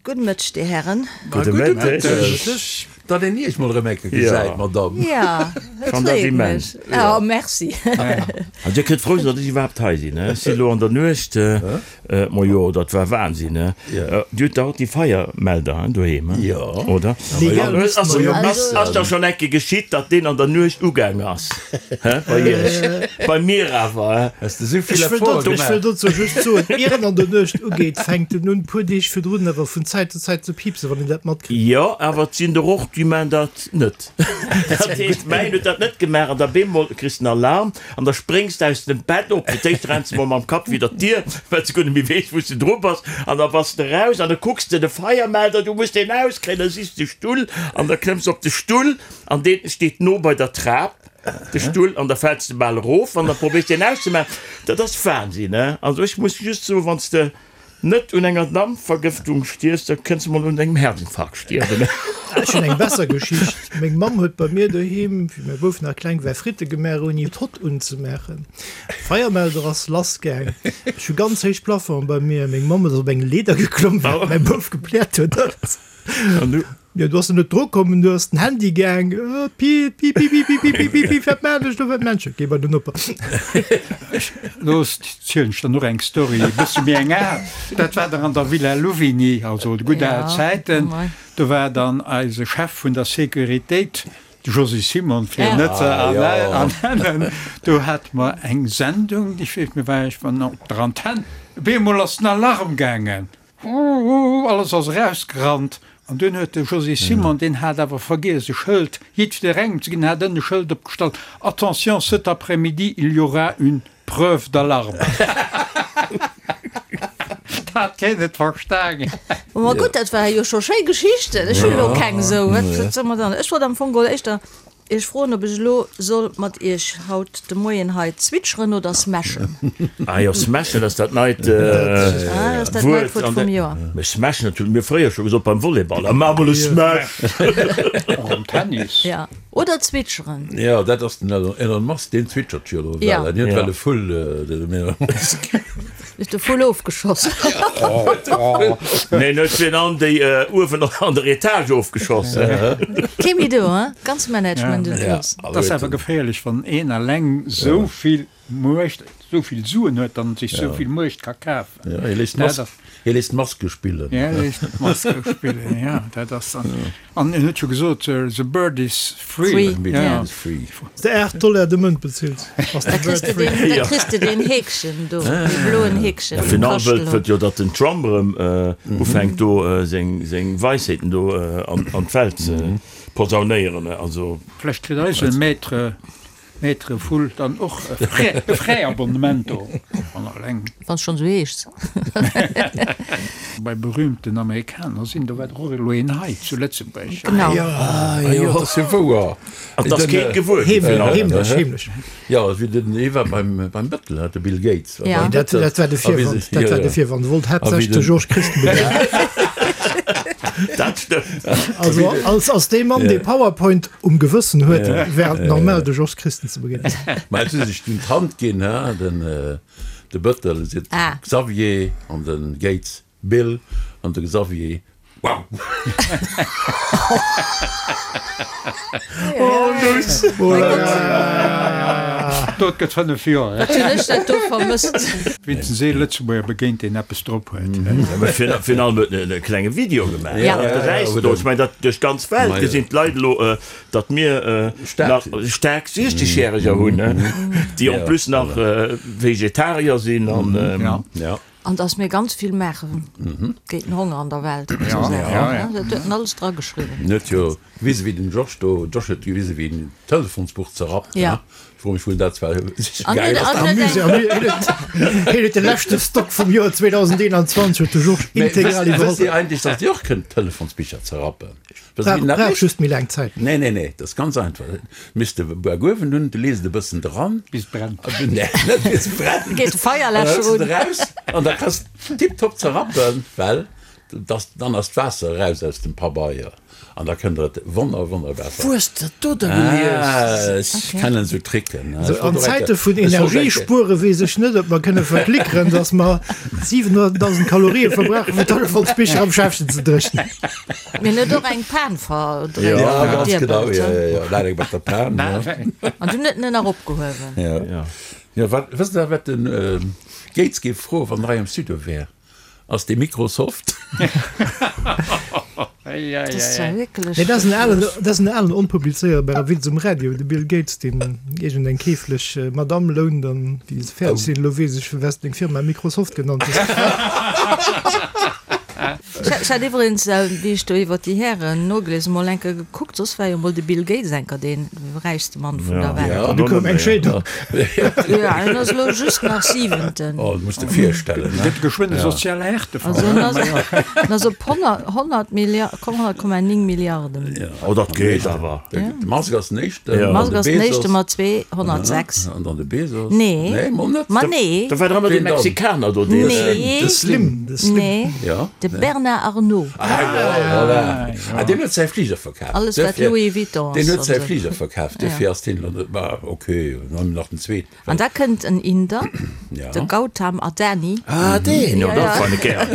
Gudde Mëtteg, Dir Herren. Gudde Mëtteg. Datt een Iech mol erëm eng Kéier gesäit, Madamm. Ja, et freet mech. Oh, merci. An Dir kënnt frou sinn, datt ech iwwerhaapt hei sinn. Ech sinn elo an der Nuecht, majo, dat war Wahnsinn. Dir hutt dach och déi Feiermelder doheem, oder? Ass da schonn eng Kéier geschitt, datt deen an der Nuecht ugaang ass? Bei Iech? Bei mir awer. Hues de sou vill Ech wëll Effort dozou, ech gemaach? wëll dozou just soen, ier en an der Nuecht ugeet, fänkt en un, puer Deeg virdrun awer vun Zäit zu Zäit ze piipsen, wann een dat matkritt. Jo, awer et sinn der och, déi maan dat net. Dat heescht, mäin huet dat net gemaach an da bemol kriss den Alarm an da spréngs de aus dem Bett op. Fir d'éischt renns de mol mam Kapp widder d'Dier, well s de guer net méi weess, wou s de dru bass an da bass de raus an da kucks de de Feiermelder, du muss deen auskréien, da sichs de Stull an da klëmms op de Stull an deen steet no bei der Trap. de Stull an da fäls de bal erof an da probéiers de en auszemaachen. Dat ass Wahnsinn, he? Also ech muss just soen, wann s de net un enger Dampvergëftung stierfs, da kënns de mol un engem Herzinfarkt stierwen. Ech hunn eng besser Geschicht. Meng Mamm huet bei mir doheem, wéi mäi Bouf nach kleng war, Fritte gemaach ouni d'Hott unzemaachen. Feiermelder ass lass gaang. Ech hu ganz héich Plafongen bei mir. Meng Mamm ass op eng Leeder geklomm, well mäi Bouf gepläert huet. An du? Jo, du ass en net dru komm, du ass den Handy gaang, piip, piip, piip, piip, piip, piip, piip, piip, wat maan ech do, wat maan ech? Geh bei den Noper. Lo zielen ech der nach eng Story, e bësse méi eng al. Dat war dann an der Villa Louvigny, also de gutt al Zäiten. Do war dann eise Chef vun der Sécuritéit, de Josy Simon, fir en net ze ernennen. Do hate mer eng Sendung, ech weess, mir war ech op der Antenn, op eemol ass den Alarm gaangen. Alles ass erausgerannt an dunn huet de Josy Simon, deen hat awer vergiess e Schëld jiddwerengem ze ginn, hat ënne e Schëld opgestallt, Attention, cet après-midi, il y aura une preuve d'alarme. Dat hat keen net verstaangen. Ma gutt, dat ware jo scho schéi Geschichten. Ech hunn elo keng esou. Wat soll mer dann? Ech wollt am Fong geholl éischter Iech froen, ob ech elo soll mat Iech haut de Moien hei zwitscheren oder smashen. Ah jo, smashen ass dat neit Wuert vum Joer. Mee smashen, dat hu mir fréier scho gesot beim Volleyball, ah maach mol e Smash! Och am Tennis. Ja, oder zwitscheren. Jo, dat ass den Elon Musk, deen zwitschert jo elo well. Hien huet well e Vull, den Elon Musk. Hues de Vull ofgeschoss? Neen, huet fir an déi uewen an der Etage ofgeschoss. Kee méi do, hein? Ganz Management un Schluss. Et ass awer geféierlech, wann een alleng sou vill Muecht, sou vill Suen huet an sech sou vill Muecht ka kafen. Hie léisst d'Maske spillen. Hie léisst d'Maske spillen, jo, dat ass dann. An en huet jo gesot, the bird is free. Wann s de 8 Dollar de Mount bezills, ass de Bird free. Da kriss de deen Heekchen do, dee bloen Heekchen. Ja, virun allem wëllt wëllt jo, datt den Trump erëm ufänkt do seng Weisheeten do an d'Welt ze posaunéieren. Also. Vlächtt kritt eise Maître Maître Vull dann och e Fräiabonnement do an alleng. Wann s schonn esou heeschs. Bei berühmten Amerikaner sinn, do war dach och elo een hei zu Lëtzebuerg. Genau. Ah jo, dat ass jo wouer. An 't ass keen gewuer ginn. Heemlech, heemlech. Jo, wéi den, hie war beim, beim Bëttel, hat de Bill Gates. Ja. Nee, dat, dat war de Virwand, dat war de Virwand. E wollt haaptsächlech de Georges Christen begéinen. Dat stëmmt. Also als, als dee Mann, dee PowerPoint Um Gewëssen huet, wär et normal de Jos Christen ze begéinen. Mä et hu sech dunn d'Hand ginn, he, den de Bëttel seet Xavier an de Gates Bill an de Xavier Wow! Oh Nuss! Dat gëtt 5 Joer. Wat hunn ech dat do vermësst. Wéinstens ee Lëtzebuerger begéint, deen eppes drop huet. Virun allem huet en e klenge Video gemaach. Ja. Dat gesäis de do. Ech mengen, dat duerch d'ganz Welt gesinn d'Leit elo, datt mir nach staark 60-Järeger hunn, déi en plus nach Vegetarier sinn an. Ja. An datt mir ganz vill maache géint den Honger an der Welt an esou Saachen. Dat huet en alles drageschriwwen. En huet jo gewisen, wéi den Georges do, Georges huet gewisen, wéi en d'Telefonsbuch zerrappt. Ja. Fro mech wou en dat zwar An geil huet, ass. an huet eng. Hien huet de leschte Stock vum Joer 2021 huet de Georges Mee integral wësst, wësst iwwerholl. Dir eigentlech, datt Dir och kënnt Telefonsbicher zerrappen? Wësst Dir, wéi Brauch, dat brauch mécht? just méi laang Zäit. Nee, nee, nee, dat ass ganz einfach. Misst de Buak uewen hunn, du lees et e bëssen dran. Bis et brennt. Nee, net bis et brennt. Geet de Feierläscher An da hëls un. de et eraus an da kanns de tiptop zerrappen, well. Dass, dann ass d'Waasser eraus aus dem Pabeier an da kënnt der et wonner wonnerbar. Wou hues de dat do da gelies? Ah, ech kennen esou Tricken. Sou an Zäite vun Energiespuere weess ech net, ob mer kënne verklickeren, dass mer 700.000 Kalorië verbrauchen, fir d'Olifantspicher am Schäffchen ze dréchnen. Mir hunn et och eng Pan verdréint. Ja, ganz genau, jo, jo, jo, dat eng mat der Pan, jo. An dunn huet en en nach opgehuewen. Jo, jo, wat, wësst Der, wat de Gates géif froen, wann en hei am Studio wär? Ass dee Microsoft? Nee, dat ass en alen, dat ass en alen onpublizéierbare Witz um Radio, de Bill Gates, deen iergend eng keeflech Madamm lount an wéi se fäerdeg sinn, elo weess ech, firwat deng Firma Microsoft genannt hues. Ech hat iwwregens, wéi ech do iwwer déi Hären nogelies hunn, mol enker gekuckt, soss war jo mol de Bill Gates enker dee räichste Mann vun der Welt. An du koum eng Scheedung. Jo, en ass elo just nach Siwenten. Oh, dat muss de virstellen, ne? Gëtt geschwënn e soziale Härtefall. Also en ass, en ass op 100, 100 Milliard, komm, 100,9 Milliarden. Oh, dat geet awer. De Musk ass den éischten. De Musk ass den éischte mat 206. An dann de Bezos. Nee. Nee, mol net. Ma nee. Da war dach ëmmer dee Mexikaner do, deen. Nee. De Slim. De Slim. Nee. Ja. De Bernard Arnault. Ah jo, voilà. Ah, deen huet säi Fliger verkaf. Alles wat Louis Vuitton ass. Deen huet säi Fliger verkaf, duerfir ass deen elo net. Ma okay, dann hu mer nach den zweeten. An da kënnt en Inder, de Gautam Adani. Ah, deen, jo, dat fannen ech gär.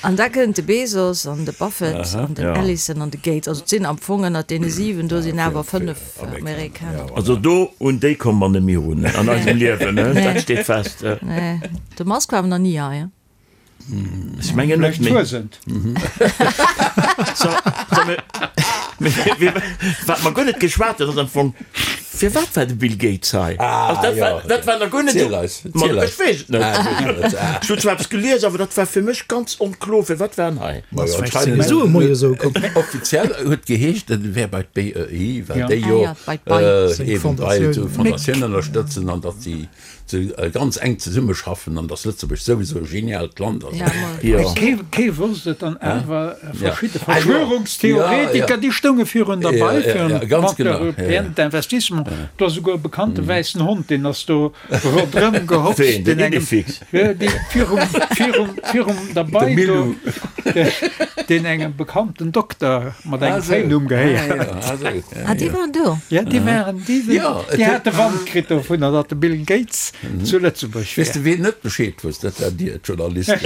An da kënnt de Bezos an de Buffett an den Ellison an de Gates. Also et sinn am Fong ënnert deene 7 do sinn awer 5 Amerikaner. Also do un déi komme mer net méi erun an eisem Liewen, dat steet fest. Nee, de Musk war awer nach ni hei. Ech mengen net méi. So, so, mir, mir, wat mer guer net geschwat hunn, ass am Fong, firwat war de Bill Gates hei? Ah, Also dat jo. war, dat war nach guer net Ziel eis, Ma ziel eis. ech weess et net. Ah, du weess et net. Ah. Ech hunn zwar eppes gelies, awer dat war fir mech ganz onklo, firwat war en hei? Ma jo, Vläicht anscheinend sinn Sue moie sou komm. Offiziell huet geheescht, en wär bei d'BEI, well Ja. déi Ah jo ja, bei d'BEI. äh, Seng eben d'BEI, Fondatioun. Fondatioun ënnerstëtzen an datt si ze ganz enk zesummeschaffen an dass Lëtzebuerg souwisou e geniaalt Land ass. Jo. Kee wosst et an awer verschidde Verschwörungstheoretiker, déi stounge virun der Bei, virun dem Banque Européenne d'Investissement. Do ass esouguer e bekannte wäissen Hond, deen ass do ronderëm gehopst. Ween? Den Idefix? Dee virum, virum, virum der Bei do, deen engem bekannten Dokter mat engem Fréinumm gehéiert. Ah, déi waren do? Ja, déi waren, déi sinn, déi hate Wand kritt dovunner, datt de Bill Gates zu Lëtzebuerg Weess wär. de ween net Bescheed wosst? Dat war Dir, d'Journalisten.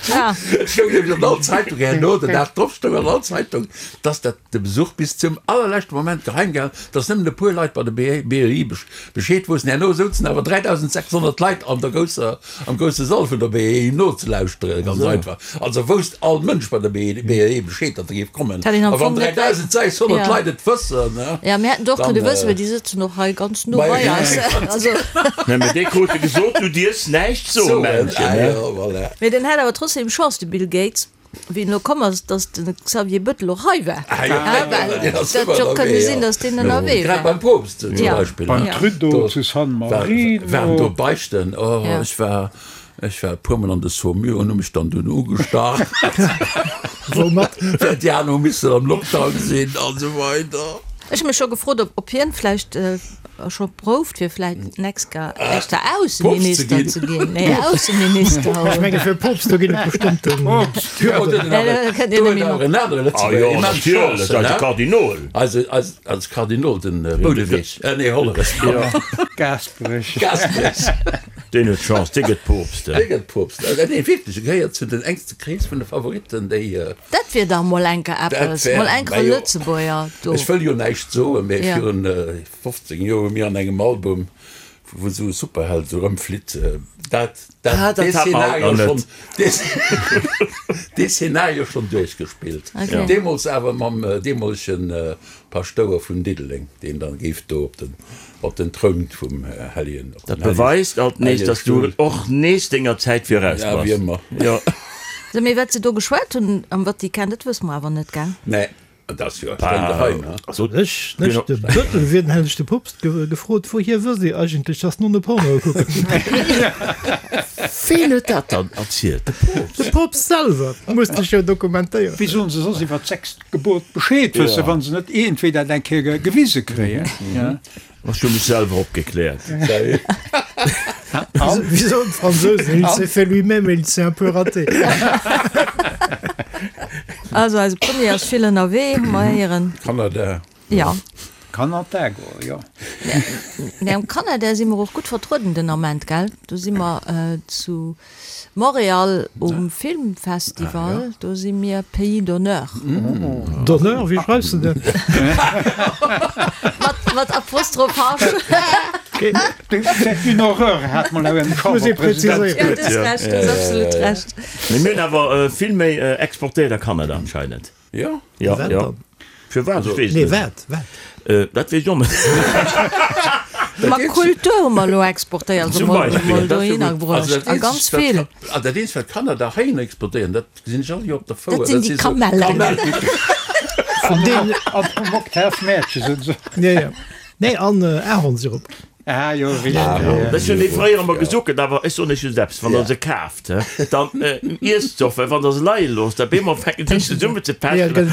Ja. Et stoung nämlech an all Zeitung herno, den Dag drop stoung an all Zeitung, dass dat de Besuch bis zum allerleschte Moment geheim gehalen, dass nëmmen e puer Leit bei der BEI Bescheed woussten. Herno souzen awer 3.600 Leit an der grousser Am grousse Sall vun der BEI nozelauschteren, ganz einfach. Also wousst all Mënsch bei der BEI Bescheed, datt e géif kommen. Hätt een am A wann Fong net wei- 3.600 Ja. Leit et wëssen, ne? Ja, mir hätten et och Dann, kënne wëssen, äh, well déi sëtzen och hei ganz no Bei- bei eis. Also, Nee, mee dee krute gesot, du dierfs näischt soen, Soen, Männchen, ah ne? jo, voilà. mee den hat awer trotzdem Chance, de Bill Gates, wéi en elo komm ass, datt de Xavier Bettel och hei war. Ah jo, Ah, well deen ass dat ëmmer jo kënne ënnerwee, sinn, ja. datt deen ënnerwee Grad war. beim Poopst zum Ja. Beispill, Beim ne? Trudeau Do zu San war, Marino. waren do Beichten. Oh, Ja. ech war, ech war e puermol an de Saumur an hu mech dann dunn ugestach. Woumat? Well déi aner hu missen am Lockdown sinn an esou weider. Ech hu mech scho gefrot, ob, ob hien vläicht scho prouft fir vläit d'nächst Ga éischter Ausseminister ze ginn. Nee, Ausseminister. Ech menge fir Poopst, do ginn et bestëmmten Hürden. Kënnt een net méi no. Ah jo, natierlech, eise Kardinol. Eise, eis, eis Kardinol, den Boudeweg, nee, Hollerech. Gaasperech. Gaasperech. Deen huet Chance, dee gëtt Poopst. Dee gëtt Poopst. Nee, wierklech, e gehéiert zu den enkste Krees vun de Favoritten, déi. Dat wier dach mol enker eppes, mol enker e Lëtzebuerger do. Ech wëll jo näischt soen, mee Ja. virun 15 Joer hu mir an engem Album, wou esou e Superheld esou rëmflitt, dat, dat, Ah, dat dee hat mer haut Szenario nach schonn, net. dee, dee Szenario schonn duerchgespillt. Okay. Deemools awer mam deemolegen Paschtouer vun Diddeleng, deen dann géif do op den, op den Troun vum Hellegen, op Dat den Hellegen, beweist alt nees, Hellege dass du Stull. och nees denger Zäit viraus Ja, bass. wéi ëmmer. Jo. Sou, mee wat se do geschwat hunn am Vatikan, dat wësse mer awer net, gell? Nee, dat ass jo streng geheim, he? Also, Ech, ech de Bëttel wier, dann hätt ech de Poopst ge gefrot, wouhier wësst Dir eigentlech, dass d'Nonne Pornoe kucken? Ween huet dat dann erzielt? De Poopst? De Poopst selwer muss sech jo dokumentéieren. Wéi sollen se soss iwwer d'sechst Gebot Bescheed wëssen, wa se net iergendwéi dat eng Kéier gewise kréien? Ech hu mech selwer opgekläert. Wéi soen d'Fransousen, il s'est fait lui-même et il s'est un peu raté. Also eise Premier ass vill ënnerwee, hu mer héieren. Kanada. Jo. Kanada goe, jo. Mä am Kanada si mer och gutt vertrueden den Ament, gell? Do si mer zu Montréal um Filmfestival, do si mir Pays d'honneur. D'honneur, wéi schreifs de dat? Mat Apostroph H. C'est une horreur, hat mol awer en Chamberpresident. Jo, du hues Recht, du hues absolut Recht. Mee mir hunn awer vill méi exportéiert a Kanada anscheinend. Jo? Jo, Wat jo. dann? Firwat? Ech weess Nee, net. wat? Wat? Äh, dat weess ech och net. Ma Kultur hu mer elo exportéiert, also Zum mol, Beispill, mol dat ass jo dohinner gutt. bruecht. Also dat A ganz eenzegt, wat vill. Ka- ah, dat eenzegt, wat Kanner heihin exportéieren, dat gesinn ech all Joer op der Fouer. Dat sinn déi sou Kamellen. Kamellen. Vun deenen. An vum Octave Mäertchen sinn se. Ja, ja. Nee, an Ahornsirup. Ah jo, richteg. Ech hunn déi fréier ëmmer gesuckelt, awer ech soen iech just eppes, Wann der se kaaft, dann iesst se och, well wann der se leie loosst, da beemol fänken se un zesummen ze pechen an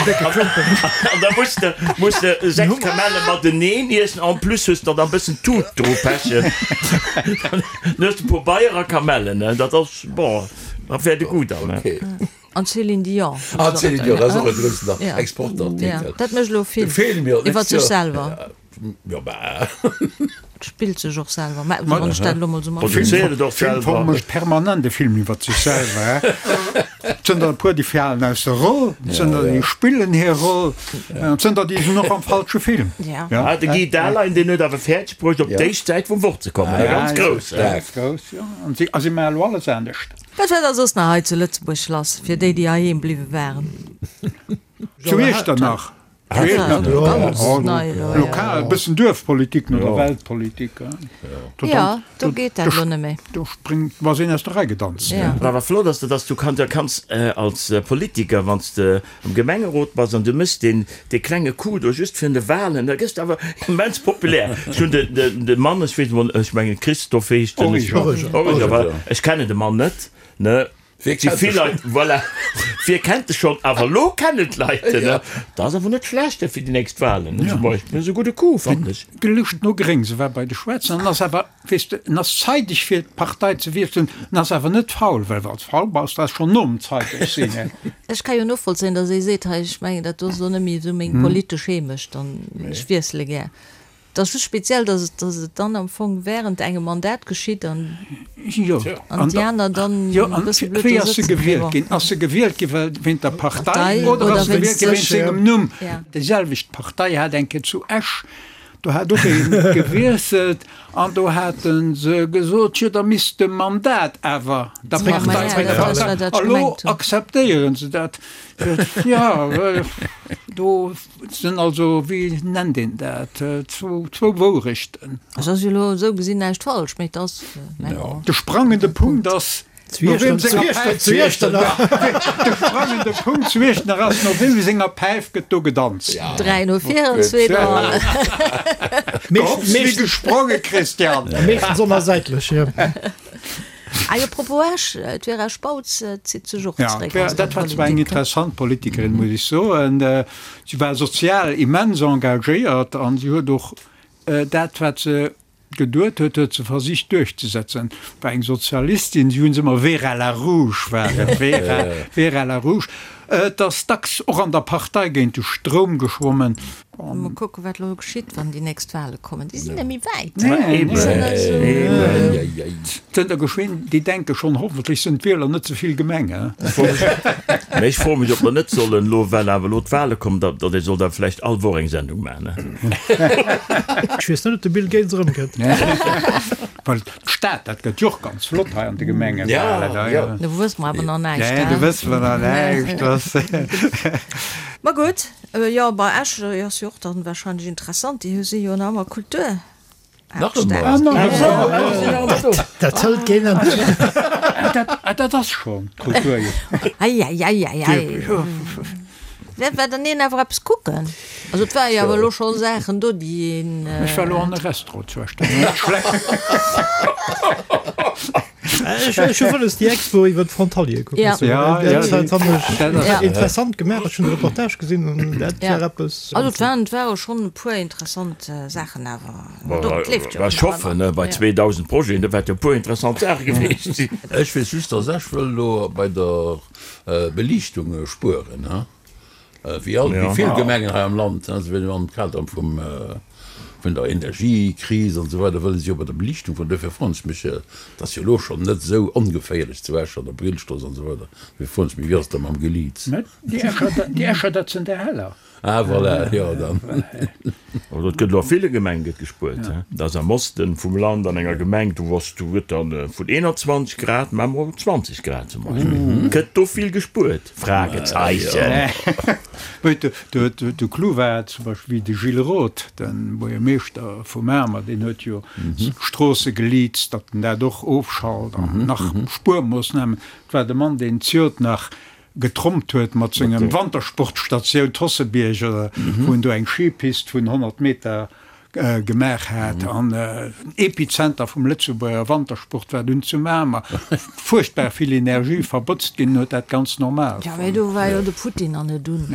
da muss de muss de 6 Kamelle mateneen iessen, en plus hues de dann e bëssen Tut dru pechen, dann hues de e puer Beier a Kamellen, dat ass bon, da wäert e gutt an. An Céline Dion. An Céline Dion, dat ass och e groussen Exportartikel. Dat mécht elo Film iwwer sech selwer. Jo bah. Et spillt sech och selwer, mä wann ech dat elo mol sou mat. Produzéiert et och Film selwer. mécht permanent e Film iwwer sech selwer. Et sënn der e puer, déi falen aus der Roll, et sënn der, déi spillen hir Roll, an et sënn der, déi sinn och am falsche Film. Ja. Ah, de Guy Dahlein, deen huet awer fäerdeg bruecht, op d'éischt Säit vum Wort ze kommen. Ja, Ganz grouss. Ganz grouss, jo. An si, a si maache elo alles anescht. Wat war da soss nach hei zu Lëtzebuerg lass, fir déi, déi heiheem bliwwe waren? Zu Iechternach. Lokal, e bëssen Duerfpolitik no der Weltpolitik. Jo, do geet dat elo net méi. Do spréngt, do ass een aus der Rei gedanzt. Wat awer flott ass, dat ass, du kanns, kanns als Politiker, wann s de am Gemengerot bass an du méchs deen, dee klenge Coup do just virun de Wahlen, da gëss de awer immens populär. Ech hunn de, de, de Mann, ech weess emol, ech mengen Christophe heescht en. Origer. Origer, voilà. Ech kennen de Mann net, ne. Wie Si kennt vill e Leit, voilà, wie kennt e schonn, awer elo kennen d'Leit en, ne? Dat ass awer net schlecht fir déi nächst Wahlen, ne, zum Beispill. Dat ass e gudde Coup, fannen ech. Gelëscht no Gréng, se war bei de Schwaarzen an ass awer, weess de, en ass zeideg fir d'Partei ze wiesselen, en ass awer net faul, well wann s faul bass, da ass schonn nom zeideg sinn, ne. Ech ka jo novollzéien, datt ee seet, hei, ech mengen, dat do ass elo net méi esou meng politesch Heemecht an ech wiessele gär. Et ass just speziell, dass et, dass et dann am Fong während engem Mandat geschitt an, Jo, an déi aner dann jo, e an bësse blöd wéi do ass se sëtzen. gewielt ginn? Ass se gewielt gi well wéint der Partei Partei oder oder ass se wéinst gewielt gi wéint sech? sengem Numm? Ja. Déi selwecht Partei hat eng Kéier zu Esch, do hat och ee gewiesselt an do hate se gesot, jo da misst de Mandat awer der Ja, ma Partei ja, dat ass, wat zréckfalen. ech A lo gemengt hunn. akzeptéieren se dat. Jo, do Et sinn also, wéi nennt een dat, zwou Wourechten. Et ass jo elo esou gesinn näischt falsch, mee et ass, mä bon. De sprangende Punkt ass, no weem senger Päif, de sprangende Punkt zu Iechternach ass, no weem senger Päif gëtt do gedanzt? 3 no 4 an 2 no hannen. Wéi gespronge, Christian! Meeschtens onersäitlech, jo. Ah jo, propos Esch, d'Vera Spautz zitt sech och Ja, zeréck aus der dat war zwar eng Politik. interessant Politikerin, muss ech soen. Si war sozial immens engagéiert an si huet och dat, wat se geduet huet, huet se versicht duerchzesetzen. War eng Sozialistin, si hu se ëmmer Vera la Rouge war et, Vera, Vera la Rouge. Et ass dacks och an der Partei géint de Stroum geschwommen. Mol kucken, wat elo geschitt, wann déi nächst Wahle kommen. Déi sinn net méi wäit. Zënter geschwinn, déi denke schonn, hoffentlech sinn d'Wieler net ze vill gemeng. Mä ech froe mech, ob mer net sollen elo, well awer elo d'Wahle kommen, datt ee soll da vläicht all Woch eng Sendung maachen. Ech weess net, ob de Bill Gates erëmkënnt. Well d'Stad, dat gëtt jo och ganz flott hei an de Gemengewahlen. Do wësse mer awer nach näischt. Nee, do wësse mer nach näischt. Ma gutt. Jo, bei Esch ass jo och dann wahrscheinlech interessant, déi si jo nach ëmmer Kultur. Nach ëmmer. Dat hëlt keen Enn. Dat ass schonn Kultur. Eieieiei. Wäert war dann een awer eppes kucken? Also et war jo awer elo scho Saachen do, déi een. Ech war elo an e Restaurant zu Esch, dat war net schlecht. Ech hu wëlles déi Expo iwwer d'Frontaliere kucken. Ja. Ja, ja, Dat fannen ech dat ass- Ja. interessant gemaach. Ech hunn de Reportage gesinn an dat Ja. war eppes. Also et waren, et ware schonn e puer interessant Saachen awer. Do, et leeft jo Ech nach hoffen, ëmmer. bei Ja. 2000 Projeten, do wäerte jo e puer interessant Saache gewiescht sinn. Ech weess just, dass ech wëll elo bei der Beliichtung spueren. Wéi all, wéi vill Gemengen hei am Land, se wëllen am Kader vum, vun der Energiekris an esou weider, wëlle si jo bei der Beliichtung vun, dofir froen ech mech, et ass jo elo schonn net esou ongeféierlech zu Esch an der Brillstrooss an esou weider, dofir froen ech mech, wéi ass et da mam Geliits? Déi Escher, déi Escher, dat sinn der Heller. Ah voilà, jo dann. Also et gëtt elo a ville Gemenge gëtt gespuert. Dat ass am Osten vum Land an enger Gemeng, do ass, do gëtt dann vun 21 Grad, maache mer 20 Grad zum Beispill. Gëtt do vill gespuert? Fragezeichen. De Clou war zum Beispill wéi de Gilles Roth, de Buergermeeschter vu Mamer, deen huet jo d'Stroosse geleast, datt en dat och ofschalt an nach Spuermoossnamen. Et war de Mann, deen d'Jod nach getrompt huet mat sengem Wantersportstatioun Tossebierg, wou en do eng Skipist vun 100 Meter gemaach hat an den Epizenter vum Lëtzebuerger Wantersport war dunn zu Mamer. Fuerchtbar vill Energie verbotzt ginn, huet dat ganz normal Ja, mee do war jo de Putin an net un.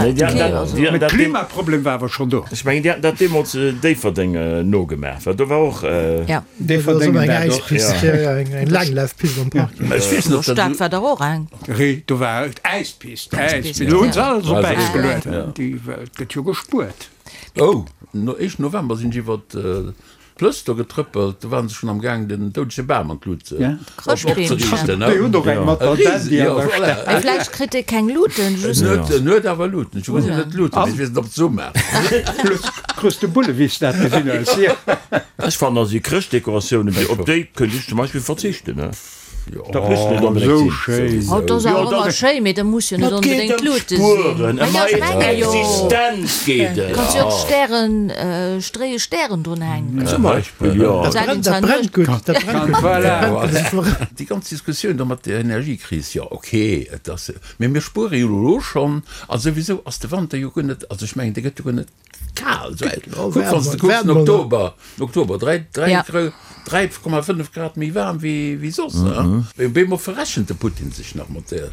Mee de Klimaproblem war awer schonn do. Ech mengen, déi haten dat deemools Déifferdeng nogemaach, well do war och. Déifferdeng eng Äispist, eng Laanglaufpist am Park. Ech weess net, ob dat. Stad war dach och eng. Do war Äispist. Äispist. Elo hunn se alles op Äis geluet. Déi Welt gëtt jo gespuert. Oh, no éischten November sinn ech iwwer d'Plëss do getrëppelt, do waren se schonn am Gaang den doudege Bam an d'Lut opzeriichten. Déi hunn och eng mat der Dandy an der Stad. Mee vläicht kritt dee keng Luten, just. En huet awer Luten. Ech gesinn net Luten, mee ech weess net ob d'Summer. Krus de Bulle wéi s dat gesinn hues. Ech fannen also déi Chrëschtdekoratiounen, op déi kënnt ech zum Beispill verzichten. Dat muss net Oh, onbedéngt esou sinn. schéin. Oh, dat ass awer ëmmer schéin, mee dat muss jo net Et geet onbedéngt ëm d'Lute sinn. d'Spueren, ëm Ma jo, ech eis menge jo. Existenz geet et. Kanns jo och Stären, stréie Stären drun hänken. Zum Beispill, jo. Dat brennt, dat brennt gutt, dat brennt gutt. Voilà. Dat brennt gutt. Déi ganz Diskussioun do mat der Energiekris, jo okay, et ass, mee mir spuere jo elo schonn a souwisou ass de Wanter jo guer net, also ech mengen, dee gëtt jo guer net Kal sou eng. Kuck wann s de kucks den Oktober, Oktober 3, 3, 3,5 Grad méi waarm wéi wéi soss. Op eemol verrechent de Putin sech nach mat der,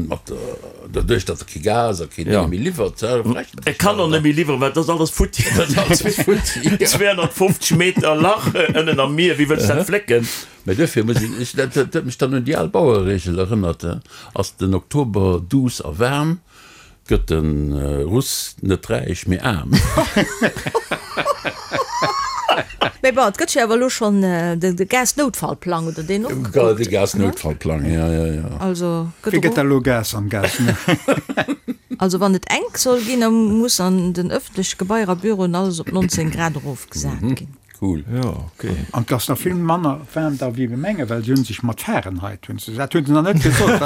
mat der, doduerch datt e kee Gas a keen Dénge méi liwwert, verrechent E kann och net méi liwweren, well dat ass alles futti. Dat ass alles futti, jo. 250 Meter Lach ënnen am Mier, wéi wëlls dat flécken? Mä duerfir muss een, ech, dat huet mech dann un déi al Bauereregel erënnert, ass den Oktober duuss a waarm, Gëtt de Russ net räich, mee aarm. Mee bon, et gëtt jo awer elo schonn de Gasnoutfallplang, oder deen och gekuckt? De Gasnoutfallplang, jo, jo, jo. Also gëtt Wéi gëtt och. da elo Gas am Gas? Also wann et enk soll ginn, da muss an den ëffentleche Gebaier a Büroen alles op 19 Grad erofgesat ginn. Cool. Jo, ok. An 't ass nach vill manner waarm da wéi mir mengen, well se hunn sech mat Fahrenheit hunn se, dat hunn se nach net gesot.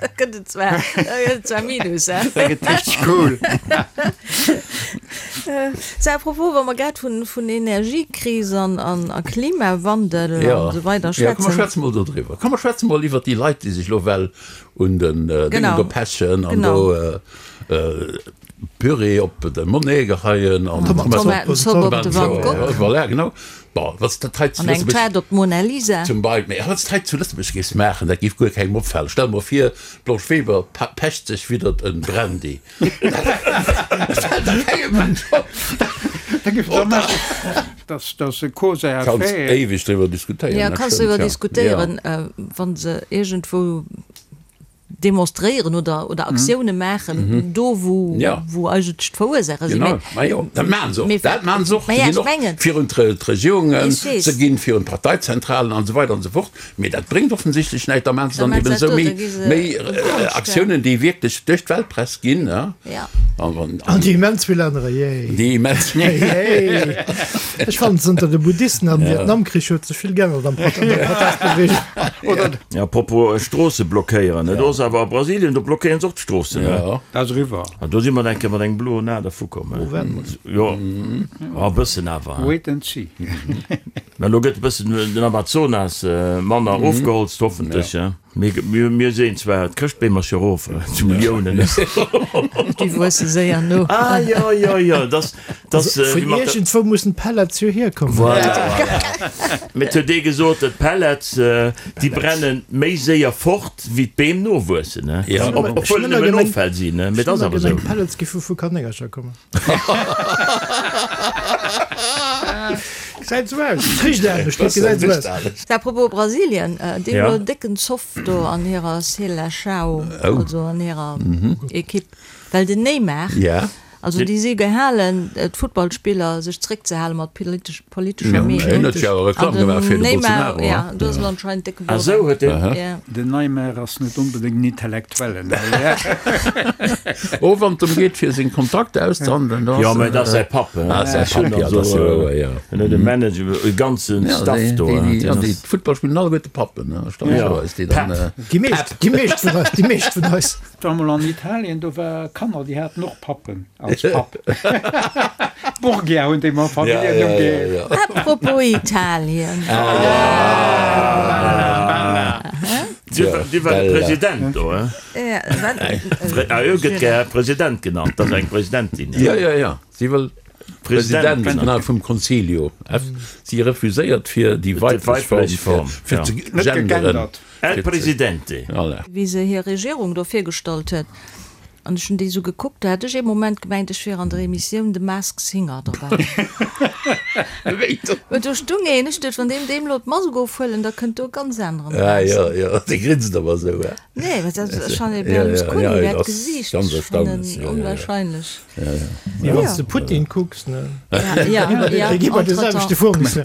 Da gëtt et zwar, da gëtt et zwar Minus, hè. Da gëtt richteg cool. Sou, à propos, wa mer grad vun, vun Energiekris an, an, a Klimawandel an esou weider Ja, komm mer schwätzen. schwätze mol do driwwer. Komm mer schwätze mol iwwert déi Leit, déi sech elo well un den Déngen Genau. do pechen an Genau. do Püree op de Monet geheien an Tomatenzopp op de Van Gogh. Voilà, genau. Bon, wann s dat hei zu An eng Lëtzebuerg. Taart op d'Mona Lisa. Zum Beispill. Mee wann s dat hei zu Lëtzebuerg géifs maachen, dat géif guer kengem opfalen. Stell mer vir, d'Blanche Weber pecht sech widdert en Brandy. Dat fält da kengem Mënsch op. Da géif der nach. Dass dass e Cause à Kanns faire. éiweg driwwer diskutéieren, Ja, dat kanns stëmmt, driwwer ja. diskutéieren, wa se iergendwou demonstréieren oder, oder Aktioune maachen, do wou, Ja. wou eigentlech d'Verursaacher sinn. Genau, ma jo, dat maachen se och, Mee dat maachen se och. Ma Se ja, ginn ech och mengen. virun d'Regierungen, Ech weess. se ginn virun d'Parteizentralen an esou weider an esou fort. Mee dat bréngt offensichtlech näischt, da maachen se Da dann maachen eben se esou dat do, méi, da gi se méi um Konscht, Aktiounen, déi wierklech duerch d'Weltpress ginn, ja. Ja. An, an, An déi immens vill anerer, yay. déi immens. Yay. Ech fannen, zënter de Buddhisten am Vietnamkrich huet sech vill geännert am Prot an der Protestbewegung. Oder Ja, apropos Stroosse blockéieren, ne, do ass awer a Brasilien, do blockéieren se och d'Stroossen, ne? Ja. Dat ass eriwwer. An do si mer eng Kéier mat engem bloen A dervu komm, ne? Jo, e bëssen awer, hein. Wait and see. Mä elo gëtt e bëssen den Amazonas manner ofgeholzt, hoffentlech, hein. Mir sinn zwar, d'Chrëschtbeem ass jo erof zu Milliounen. Déi wuesse séier no. Ah jo, jo, jo, dass, dass. Vun iergendwou mussen d'Pellets jo hierkommen. Voilà, voilà. Mee et huet ee gesot, d'Pellets, déi brenne méi séier fort, wéi d'Beem nowuessen. Obwuel et nëmmen Offäll sinn, mee et ass awer esou. D'Pellets gi vu vu Kanéngercher kommen. Gesäit esou aus. Richt anescht, mee et gesäit esou aus. Apropos Brasilien, déi hunn elo en décken Zoff do an hirer Seleção, also an hirer Ekipp, well den Neymar, also déi si gehalen, d'Futtballspiller sech zeréckzehale mat politescher Meenung. An den Neymar, jo, do ass elo anscheinend décke Bordell. Den Neymar ass net onbedéngt en Intellektuellen. Oh, wann et drëm geet, fir seng Kontrakter auszehandelen, da ass. Jo, mä et ass säi Papp, hein. Ah, säi Papp, jo, dat ass jo wouer, jo. En huet e Manager, e ganzen Staff do. Jo, déi Futtball spillen alleguerte Pappen, hein, erstaunlecherweis, déi dann. Déi meescht, déi meescht vun eis, déi meescht vun eis. War mol an Italien, do war Kanner, déi haten och Pappen als Papp. Borgia hunn déi mam Familljennumm geheescht. Apropos Italien. Dir war de President do, hein? Ah jo, gëtt gär President genannt, dat ass eng Presidentin. Jo, jo, jo, si wëll President vum Consiglio. Si refuséiert fir déi weiblech Form fir ze genderen. El Presidente. Wéi se hir Regierung do virgestallt huet, an ech hunn déi esou gekuckt, do hat ech ee Moment gemengt, ech wier an der Emissioun The Mask Singer derbäi. Well do stung een, ech duecht, wann deem deem elo d'Mask ofhuelen, da kënnt do e ganz aneren eraus. Ah jo, jo, dee grinst awer esou, he? Nee, well dat ass schonn e Berlusconi, dat Gesiicht, ech fannen onwahrscheinlech. Mee wann s de Putin kucks, ne? Déi gi bei de selwechte Fournisseur.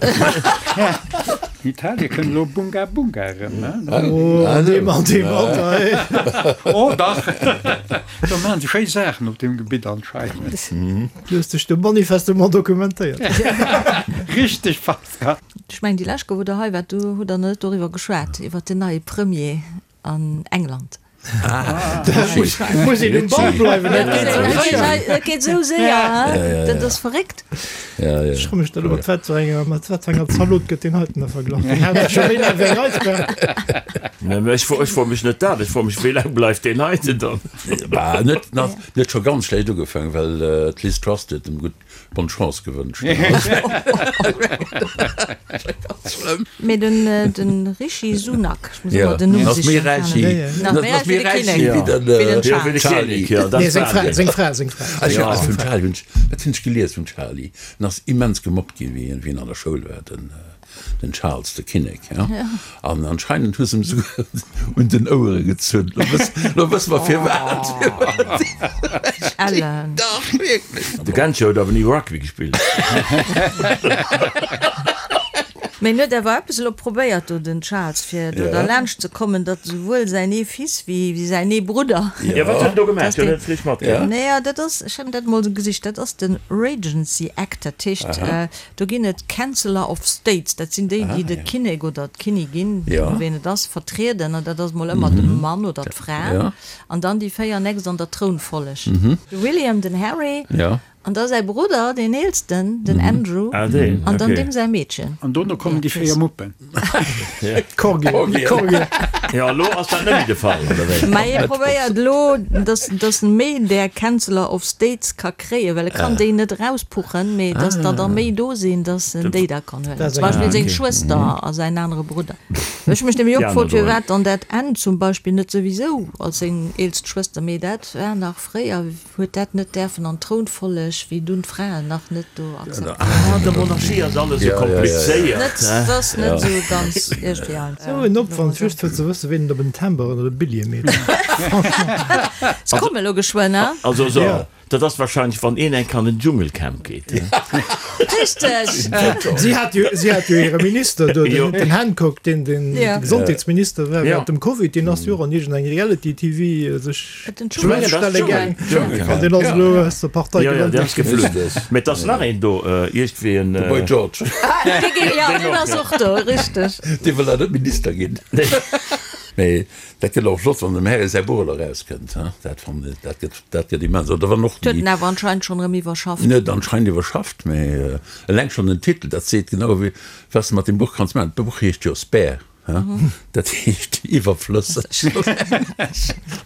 Italie kënnt elo Bunga Bunga erëm, ne? Oh, an deem, an deem Alter, hey! Oh dach! Do maachen se schéi Saachen op deem Gebitt anscheinend. Du hues dech do manifestement dokumentéiert. Richteg, Pascal. Ech mengen, déi lescht Kéier, wou Der hei waart, do hutt Der net doriwwer geschwat, iwwer den neie Premier an England. Muss een um Ball bleiwen, dat geet esou séier. Dat geet esou séier, dat ass verréckt. Ech froe mech da elo, mat wat fir enger, mat wat fir enger Zalot gëtt deen heiten da verglach? Deen hat scho méi laang wéi eng Eisbär. Nee, mä ech fro, ech froe mech net dat, ech froe mech, wéi laang bleift deen heiten dann? Bah, net, net scho ganz schlecht ugefaangen, well d'Liz Truss huet em gutt Bonne Chance gewënscht. Mee den den Rishi Sunak, ech muss ëmmer den Numm sichen. Méi räich wéi den Charlie. Nee, seng Fra, seng Fra, seng Fra. Vum Charlie hunn ech, wat hunn ech gelies vum Charlie? En ass immens gemobbt ginn, wéi en an der Schoul war, den. Den Charles, de Kinnek, ja. An anscheinend hu se em souguer un den Ouere gezunn. Lo wëss, lo wësse mer firwat. Ellen. Dach, wierklech. De Genscher huet awer ni Rugby gespillt. Mee en huet awer eppes elo probéiert do, den Charles, fir do derlaanscht ze kommen, datt esouwuel säin ee Fils wéi säin ee Brudder. Jo, wat huet en do gemaach? Huet en net vläicht matgemaach? Naja, dat ass, ech hunn dat emol esou gesicht, dat ass de Regency Act, dat heescht, Do ginn et Chancellor of States, dat sinn déi, déi de Kinnek oder d'Kinnigin, wien et ass, vertrieden, an dat ass mol ëmmer de Mann oder d'Fra, an dann déi 4 nächst an der Trounfolleg, de William, den Harry, an da säi Brudder, deen eelsten, den Andrew, an dann deem säi Meedchen. An dono kommen déi 4 Muppen. Corgi. Jo, elo ass dat net méi de Fall, oder wéi? Mä hie probéiert elo, dass dass en méi där Chancellor of States ka kréien, well e kann déi net erauspuchen, mee dass der der méi do sinn, dass en déi da kann huelen. Zum Beispill seng Schwëster a säin anere Brudder. Ech hu mech nämlech och gefrot, firwat dann dat Anne zum Beispill net souwisou als seng eelst Schwëster, mee dat war nach fréier. Huet dat net däerfen an d'Trounfolleg, wéi dunn d'Fraen nach net do akzeptéiert waren. An der Monarchie ass alles esou komplizéiert. Net, et ass net esou ganz iergendwéi einfach. Sou en Opwand just fir ze wëssen, ween et op en Timber oder e Billjee meet. Franchement. Se komme lo geschwënn, hein? Also so, dat ass wahrscheinlech wann een enk an den Dschungelcamp geet. Richteg! Si hat jo, si hat jo hire Minister do, den, den Hancock, deen den Gesondheetsminister war während dem Covid, deen ass jo och an iergendeng Reality-TV sech. Deen ass elo aus der Partei geflunn. Mee et ass nach een do, iergendwéi en. De Boy George. Jo, deen ass och do, richteg. Dee wëll awer net Minister ginn. Mee dat gëtt och flott, wann dem Harry säi Buch elo erauskënnt, hein. Dat fannen ech, dat gëtt, dat gëtt immens. Oder wann och déi. Huet en awer anscheinend schonn erëm iwwerschafft. Net anscheinend iwwerschafft, mee eleng schonn den Titel, dat seet genau, wéi, wat s de mat deem Buch kanns maachen. D'Buch heescht jo Spare. Dat heescht iwwerflësseg.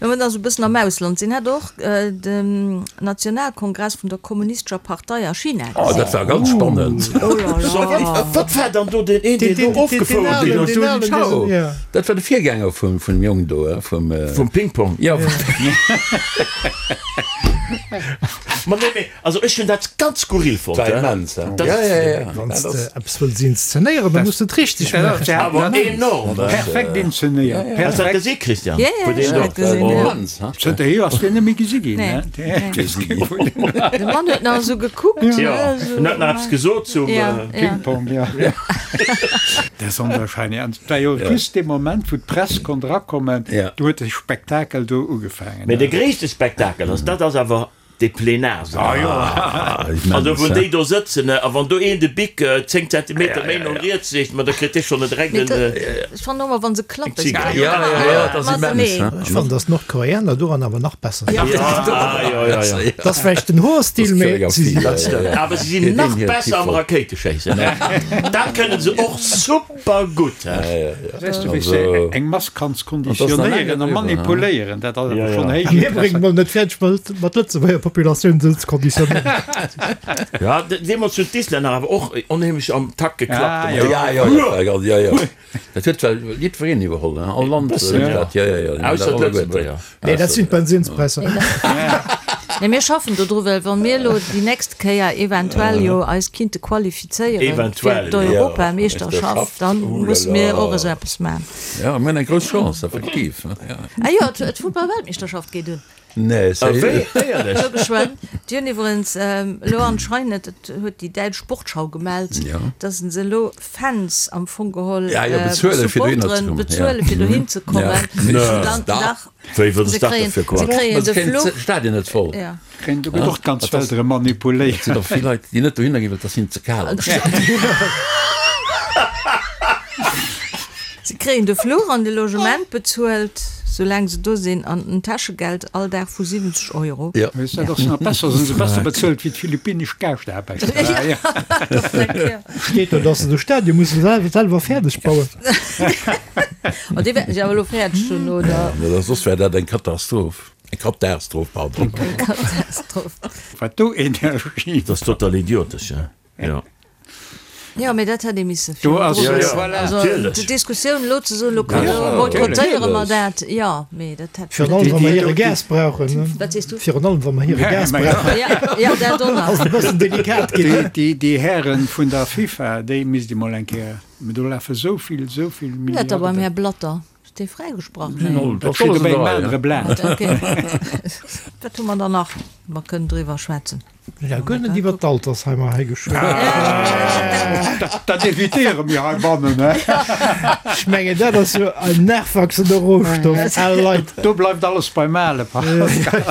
Wa mer da sou e bëssen am Ausland sinn, hat och den Nationalkongress vun der Kommunistescher Partei a China gesinn. Oh, dat war ganz spannend. Oh la la. Wat war dann do deen een, deen do ofgefouert ginn ass? Zhou Zhao. Dat war de Virgänger vum Jong do, vum. Vum Ping-Pong. Jo. Ma nee, mee also ech hunn dat ganz skurril fonnt. War immens, he? Ja, ja, ja. Wann s de eppes wëlls inszenéieren, da muss de et richteg maachen. Awer enorm! Perfekt inszenéiert. Hast du dat gesi, Christian? Ja, ja, ech hunn dat gesinn, ja. Immens, he? Zënterhier ass deen net méi gesi ginn, he? De Mann huet nach esou gekuckt, Ja, en huet nach eppes gesot zum Ping-Pong, ja. Dat ass onwahrscheinlech. An et war jo just dee Moment, wou d'Press konnt erakommen, do huet de Spektakel do ugefaangen. Mee de gréisste Spektakel ass, dat ass awer dee Plenarsall. Also wou déi do sëtzen, a wann do een de Bic 10 Zentimeter méi no riets leet, ma da kritt dee schonn e direkt en. Ech fannen och emmer wann se klappen. Jo, jo, jo, dat ass immens. Ech fannen, dass d'Nordkoreaner doran awer nach besser sinn. Jo, jo, jo. Dat ass vläicht den Hoerstil, mee si sinn. Dat stëmmt. Awer si sinn nach besser am Rakéiteschéissen. Dat kënne se och super. Super gutt! Weess du, wéi s de eng Mass kanns konditionéieren a manipuléieren, dat ass awer schonn héich A mir bréngen mol net fäerdeg, mat Lëtzebuerger Populatioun esou ze konditionéieren. Jo, deemools hunn d'Islänner awer och onheemlech am Takt geklappt. Jo, jo, jo, jo. Dat huet well jiddwereen iwwerholl, all Land huet dat, jo, jo, jo. Ausser d'Lëtzebuerger. Nee, dat sinn d'Bensinspräisser. Nee, mir schaffen do dru, well wa mir elo déi nächst Kéier eventuell jo eis kinnte qualifizéiere fir d'Europameeschterschaft, da musse mir och esou eppes maachen. Jo, mir hunn eng grouss Chance, effektiv. Ah jo, d'Futtballweltmeeschterschaft geet un. Nee, sérieux? Éierlech? Elo geschwënn. Déi hunn iwwerens elo anscheinend, dat huet déi däitsch Sportschau gemellt, datt se elo Fans am Fong geholl Supporteren bezuelen, fir dohin ze kommen. Dach, se kréien, se kréien de Fluch. Stadion net voll. Ja. Kréien do gëtt och d'ganz Welt erëm manipuléiert. Et sinn och vill Leit, déi net dohinner ginn, well et ass hinnen ze kal am Stadion. Se kréien de Fluch an de Logement bezuelt, soulaang se do sinn, an en Täschegeld all Dag vu 70 Euro. Jo. Weess dat ass nach besser, sinn se besser bezuelt wéi d'philippinesch Gaaschtaarbechter. Steet do, dass se de Stadion musse selwer fäerdeg bauen. Oh, déi wäerten se awer elo fäerdeg hunn, oder? Ja, soss wär dat eng Katastroph. Eng Katastroph, pardon. Eng Katastroph. Wat do Energie. Dat ass total idiotesch, jo. Jo, mee dat hätt ee misse virdru wëssen. Also déi Diskussioun elo ze soen, elo boykottéiere mer dat, jo, mee dat hätt. Virun allem, wa mer hire Gas brauchen. Wat sees du? Virun allem, wa mer hire Gas brauchen. Jo, jo, dat och nach. Ass et e bëssen delikat ginn. Déi Hären vun der FIFA, déi misst ee mol eng Kéier, mä do lafe sou vill, sou vill Milliarden. Net da beim Här Blatter. Ass dee fräigesprach? Nee. Dat steet op engem anere Blat. Okay. Wat hu mer dann nach? Mer kënnen driwwer schwätzen. Mir hu guer net iwwer d'Altersheimer hei geschwat. Dat evitéiere mir heibannen. Ech mengen, dat ass jo en nachwachsender Rohstoff, al Leit. Do bleift alles beim Ale, Pascal.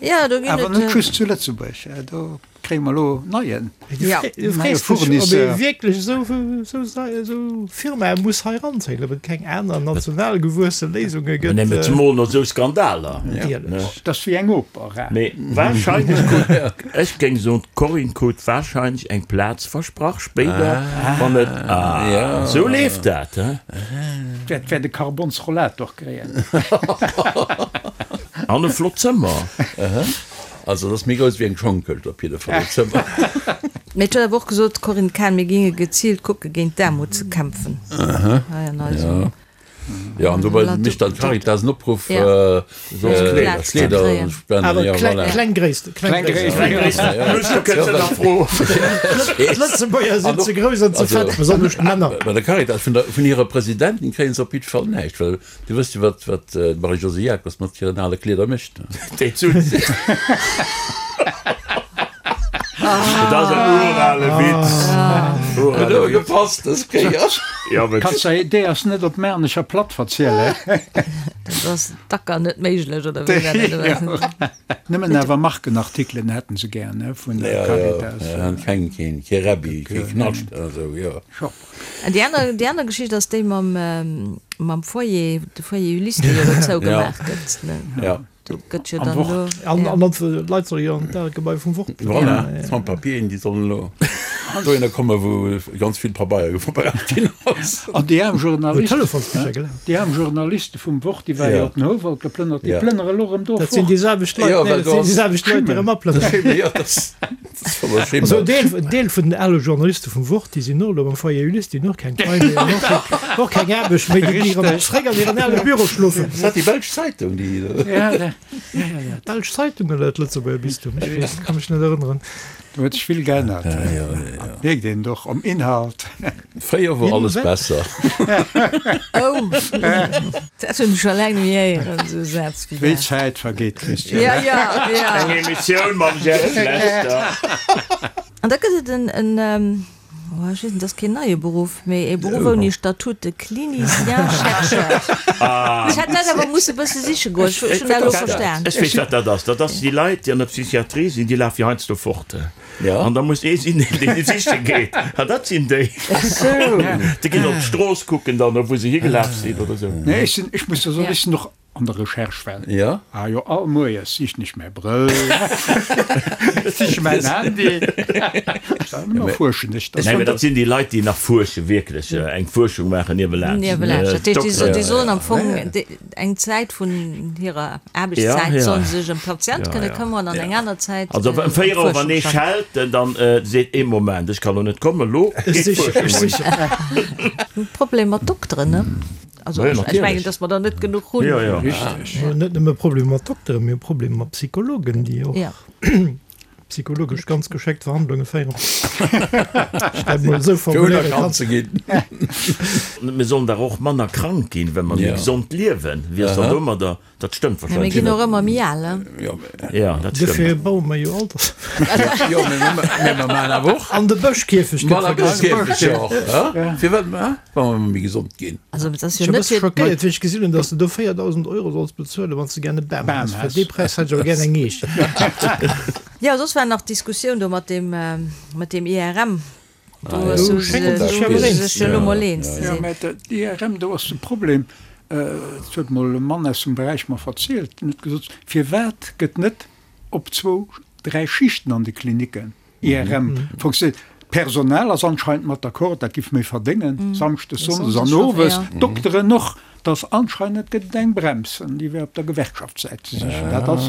Ja, do ginn et. Awer net just zu Lëtzebuerg. Do Kréie mer elo neien Du frees dech, ob ee wierklech esou Firmae muss hei eranzéien, ob et keng aner national gewuesse Léisunge gëtt. Mä zemol no esou Skandaler. Natierlech. Dat ass wéi eng Oper. Mee warscheinlech krut, ech géing soen, d'Corinne krut warscheinlech eng Plaz versprach spéider, wann et, ah, esou leeft dat, he? Wäert wäert e Karbonsrollator kréien. An e flott Zëmmer. Also et ass méi grouss wéi eng Schongkëscht op jidde Fall, dat Zëmmer. Mee et huet awer och gesot, d'Corinne Cahen, mir géinge geziilt kucke géint d'Aarmut ze kämpfen hei an eisem Jo, an dobäi mécht dann d'Caritas en Opruff, soss Kleeder ze spenden. Awer kleng Gréissten, kleng Gréissten. D'Lëtzebuerger sinn ze grouss an ze fett, besonnesch d'Männer. Bei der Caritas, vun hirer Presidentin kréie se op jidde Fall näischt, well Du wëss jo, wat, wat d'Marie-Josée Jacobs mat hiren ale Kleeder mécht. Déi Zut. Dat ass en urale Witz. Huet awer gepasst dës Kéier. Jo, mee. Kanns de déi ass net op Maarnecher Platt verzielen. Dat ass dacker net méiglech, oder wéi war dat? Nëmmen awer Markenartikelen hätten se gär, ne, vun der Caritas. Jo, jo, keng, keen, kee Rebbi, kee Knascht a sou, jo. An déi aner, déi aner Geschicht ass déi mam, mam Foyer, de Foyer Ulysse, dee jo elo zougemaach gëtt, ne? Ja. Do gëtt jo dann elo. An, an d'Leit solle jo an d'Gebai vum Wort. Voilà, d'Sans-Papieren, déi sollen elo. Dohinner komme wou ganz vill Pabeier verbraucht ginn ass. An déi aarm Journalisten, déi aarm Journaliste vum Wort, déi ware jo op den Houwald geplënnert, déi plënnere elo erëm do fort. Dat sinn déi selwecht Leit, nee, dat sinn déi selwecht Leit, déi erëm aplënneren. Jo, dat Also en Deel vun den ale Journaliste vum Wort, déi sinn och elo am Foyer Ulysse, déi hunn och keng Pai méi an och keng Aarbecht méi, déi ginn erëm zréck an hiren ale Büro schlofen. Ass dat déi belsch Zeitung, déi. D'belsch Zeitung oder d'Lëtzebuerger Bistum? Ech weess, ka mech net erënneren. Do huet sech vill geännert. Mierkt een och am Inhalt. Fréier wor alles besser. Oh, dat hunn ech scho laang net méi héieren, esou e Saz wéi dat. Wéi d'Zäit vergeet, Christian. Ja, ja, ja. Eng Emissioun mam Jeff Lester. An da gëtt et en, en, oh, ech weess net, dat ass keen neie Beruff, mee e Beruff ouni Statut, de Clinicien-chercheur. Ech hätt dat awer musse bësse siche goen, ech hunn dat elo verstan. Ech weess, wat dat ass. Dat ass déi Leit, déi an der Psychiatrie sinn, déi lafe jo heiansdo fort. An da muss ee sinn, deen déi siche geet. An dat sinn déi. Déi ginn op d'Strooss kucken dann, wou se higelaf sinn oder esou. Nee, ech sinn, ech muss jo soen, ech sinn och an der Recherche well. Jo. Ah jo, all Moies sichen ech mäi Brëll, siche mäin Handy. Ëmmer fuerschen ech. Nee, mä dat sinn déi Leit, déi nach fuerschen, wierklech eng Fuerschung maachen niewelaanscht. Niewelaanscht. Dat heescht, déi sollen am Fong eng Zäit vun hirer Aarbechtszäit sollen se sech ëm d'Patient kënne këmmeren an eng aner Zäit Also ëm 4 Auer, wann ee schellt, dann seet ee, Moment, ech kann elo net kommen, elo geet d'Fuerschung un. Problem mat Dokteren, ne? Also ech mengen, datt mer der net genuch hunn. Richteg. Net nëmme Problem mat Dokteren, mir hu Problem mat Psychologen, déi och psychologesch ganz geschéckt Verhandlunge féieren. Ech dat mol esou formuléiere kann. Ze ginn. Mir sollen dach och manner krank ginn, well mer méi gesond liewen. Wéi ass dann domadder? Dat stëmmt Mä mir wahrscheinlech ginn och ëmmer méi al, ne? Jo, dat stëmmt. Dofir baue mer jo Alters. Jo, mä mer maachen awer och. An de Bëschkierfecht gëtt Manner vergréissert. Bëschkierfecht, jo. Firwat? Wa mer méi gesond ginn. Also et ass Ech jo war net bësse fir. schockéiert, wéi ech gesinn hunn, dass de do 4.000 Euro solls bezuelen, wann s de gär e Bam Bam häss. Fir häss. dee Präis hätt ech awer gär eng Eech. Jo, soss war nach d'Diskussioun do mat deem, mat deem IRM. Do Ah, hu jo. se Schéngt do sech hu awer se eens sech ze jo elo sinn. mol eens ze Jo, sinn. mä d'IRM, do ass de Problem, dat huet mol e Mann aus dem Beräich mer verzielt, deen huet gesot, Firwat gëtt net op zwou, dräi Schichten an de Klinicken IRM funktioniert. D'Personal ass anscheinend mat d'accord, dat giff méi verdéngen, samschdes, sonndes an owes, d'Dokteren och. Dass anscheinend gëtt et eng Brems, an déi wär op der Gewerkschaftssäit ze sichen. Dat ass,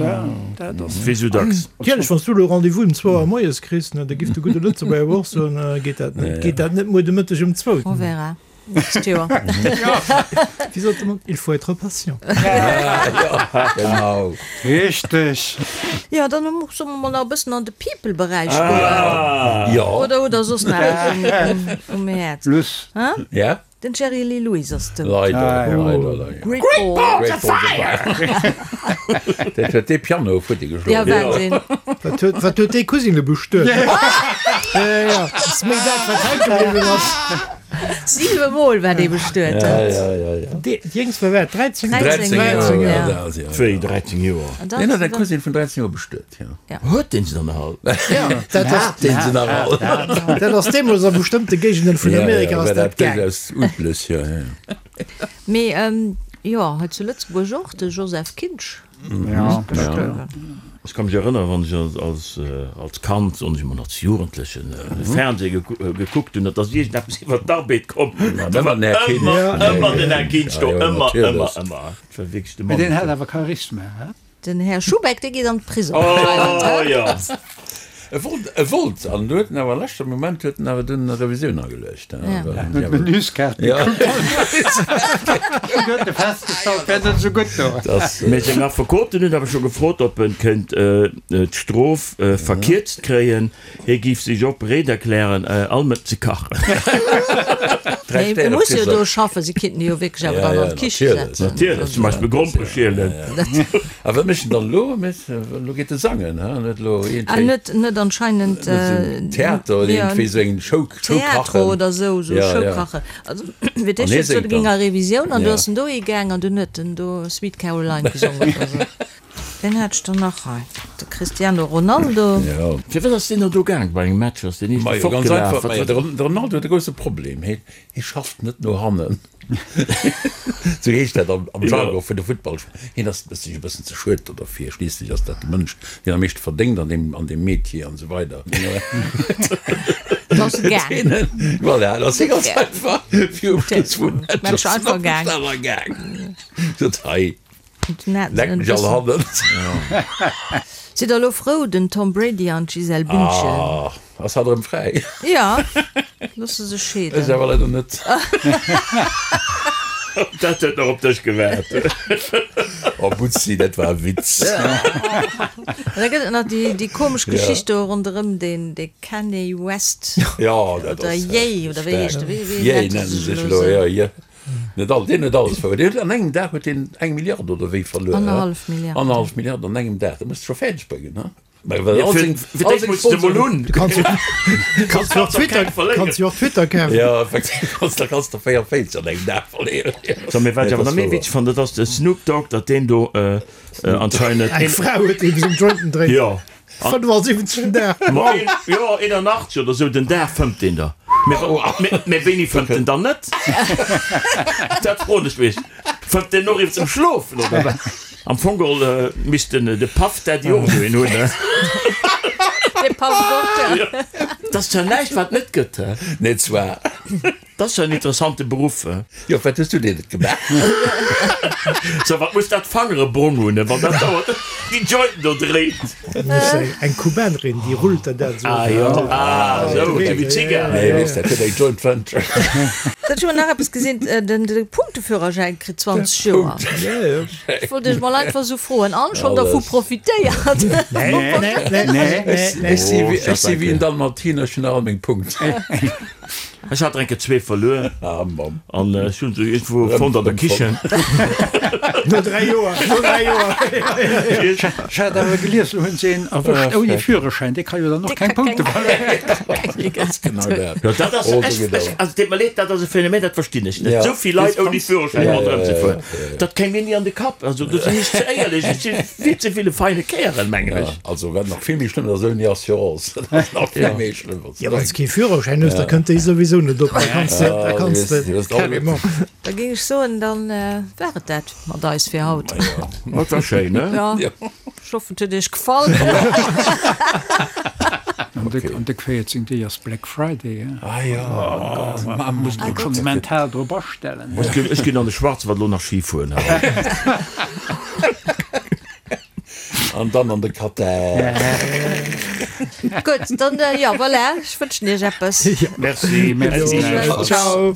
dat ass. Wéi sou dacks. Natierlech, wann s du elo Rendez-vous um zwou Auer moies kriss, ne, da giff de gudde Lëtzebuerger awer och soen, Geet dat net, geet dat net muer de Mëtteg um zwou? On verra. Nächst Joer. Wéi sot de Mann, Il faut être patient. Genau. Richteg. Jo, dann solle mer mol nach e bëssen an de People-Beräich goen. Jo. Oder hutt Der soss nach eppes um Häerz? Luss. Ja. Den Jerry Lee Lewis ass dout. Leider, leider, leider. Great Balls of Fire! Dat huet dee Piano futti geschloen. Ja, Wahnsinn. Wat huet, wat huet dee Cousine bestuet? Ja, ja, ass méi dat, wat hänke bliwwen ass. Siwe Mol war dee bestuet. Ja, ja, ja, ja. Dee Jéngst war wat, 13? 13, 13 ja. Joer, ja, ja. Wéi 13 Joer? Deen huet eng Cousine vun 13 Joer bestuet, ja. Ja. Huet deen se dann nach all? Ja, dat ass, Hat deen se nach all? dat ass deemools a bestëmmte Géigenden vun Amerika ass war dat dat gaang. duerchaus üblech, ja, ja. Mee jo, hei zu Lëtzebuerg och, de Joseph Kinsch. Ja, gestuerwen. Ech ka mech erënneren, wann ech als, als Kand, soen ech emol, als Jugendlechen, de Fernseh gekuckt hunn, et ass iergendeppes iwwer d'Arbed komm, da war ëmmer, ëmmer den Här Kinsch do, ëmmer, ëmmer, ëmmer. Et war wierklech de Mee Mann. deen hat awer Charisma, he? Den Här Schubeck, dee geet an d'Prisong. Oh jo. E wollt, e wollt, an huet en awer am leschte Moment huet en awer dunn e Revisioun ageluecht. En huet d'Menüskaart gekuckt. An huet e festgestallt, wär net esou gutt do. Mee seng Affekoten hunn awer scho gefrot, ob en kéint d'Strof verkierzt kréien. Hie géif sech och bereet erklären, all Mëtt ze kachen. Mee e muss jo do schaffen, si kinnten e jo wierklech awer dann an d'Kiche setzen. Natierlech, zum Beispill Grompere schielen. A wat mécht en dann elo? Elo geet e sangen, he? An huet elo iergendwéi. Net, net anscheinend. Theater oder iergendwéi esou eng Show, Show kachen. Theatro oder esou, esou Show kachen. Also, fir d'éischt huet e géing a Revisioun an du ass en dohi gaang an dunn huet en do Sweet Caroline gesongen oder esou. Ween hat ech dann nach hei? De Cristiano Ronaldo. Jo. Firwat ass deen no do gaang? Bei engem Match ass deen eeschte Majo, ganz fortgelaf. einfach, Wat majo, wat de Ron- de Ronaldo huet e grousse Problem, hie hie schafft net no hannen. Sou heescht dat am am Jargon vun de Futtballspiller. Hien ass sech e bëssen ze schued do derfir. Schliisslech ass dat de Mënsch, deen am meeschte verdéngt an deem an deem Metier an esou weider. Ass e gaang. Voilà, da ass hie ganz einfach virum Schluss vum Match einfach gaang. Sot hei. Leck mech all hannen. Sidd der elo frou, den Tom Brady an d'Gisèle Bündchen? Ah, ass hatt erëm fräi? Jo, loosse sech scheeden. Ech awer leider net. Dat huet nach op dech gewaart. Oh Butzi, dat war e Witz. An da gëtt et nach déi, déi komesch Geschicht do ronderëm deen, dee Kanye West. Jo, dat ass. Oder Ye, oder wéi heescht de? Wéi, wéi nennt e sech elo? Jo, Ye. Net all, deen huet alles verluer. Deen huet an engem Dag huet deen eng Milliard oder wéi verluer. Annerhallef Milliard. Annerhallef Milliard an engem Dag. Dat muss de scho fäerdeg bréngen, he? Mä well all seng, Fir all d'éischt seng muss de mol Sponsoren. hunn. Du kanns jo, kanns jo och Twitter, kanns jo och Twitter kafen. Jo, effektiv, kanns, da kanns de 44 an engem Dag verléieren. So, mee wat ech awer nach méi witzeg fannen, dat ass de Snoop Dogg, datt deen do anscheinend. Eng Fra huet dee seng Jointen dréint. Jo. 75 den Dag. Ma een, jo, 81 oder sou den Dag fëmmt deen der. Mee wéini fëmmt en dann net? Dat froen ech mech. Fëmmt deen och iwwer zum Schlofen oder wat? Am Fong geholl misst den de Puff Daddy och esou een hunn, he? De Puff och, ja. Dat ass zwar näischt wat net gëtt, he? Nee, zwar. Dat ass jo en interessante Beruff. Jo, wat hues du deen net gemaach? So, wat muss dat Fangere brong hunn, wann dat dauert déi Jointen do dréit? Eng Kubanerin, déi rullt der dat esou. Ah jo, ah esou, esou wéi Zigarren. Nee, weess, dat huet eng Joint Venture. Dat hu mer nach eppes gesinn, den Punkteführerschäin kritt 20 Joer. Ech wollt iech mol einfach esou froen, an schonn dervu profitéiert? Nee, nee, nee, nee, nee. Ech si wéi en Dalmatiner, ech hunn nach all meng Punkten. Ech hat enke zwee verluer an ech hunn se iergendwou fonnt an der Kichen. No 3 Joer, no 3 Joer. Ech hat awer gelies, elo hunn se een erwëscht ouni Führerschäin, dee ka jo dann och keng Punkte verléieren. Ganz genau dat. Jo, dat ass, ech, ech, also deet mer leed, dat ass e Phänomen, dat verstinn ech net. Esou vill Leit ouni Führerschäin ronderëm ze fueren, dat kéim mir ni an de Kapp. Also do sinn ech ze éierlech, ech si vill ze vill e feine Kärel, mengen ech. Also wat nach vill méi schlëmm ass, ouni Assurance, dat ass nach vill méi schlëmm. Jo, wann s de kee Führerschäin hues, da kënnt déi souwisou net op. Da kanns de, da kanns de carrément. Da géing ech soen, dann war et dat mat eis fir haut. Dat war schéin, ne? Jo, ech hoffen, et huet iech gefall. An de 14 Deeg ass Black Friday, he? Ah jo, oh Gott. Ma muss een schonn mental drop astellen. Ech ginn an de Schwarzwald elo nach Ski fueren. An dann an de Katar. Gutt, dann jo, voilà, ech wënschen iech eppes. Merci, merci. Ciao.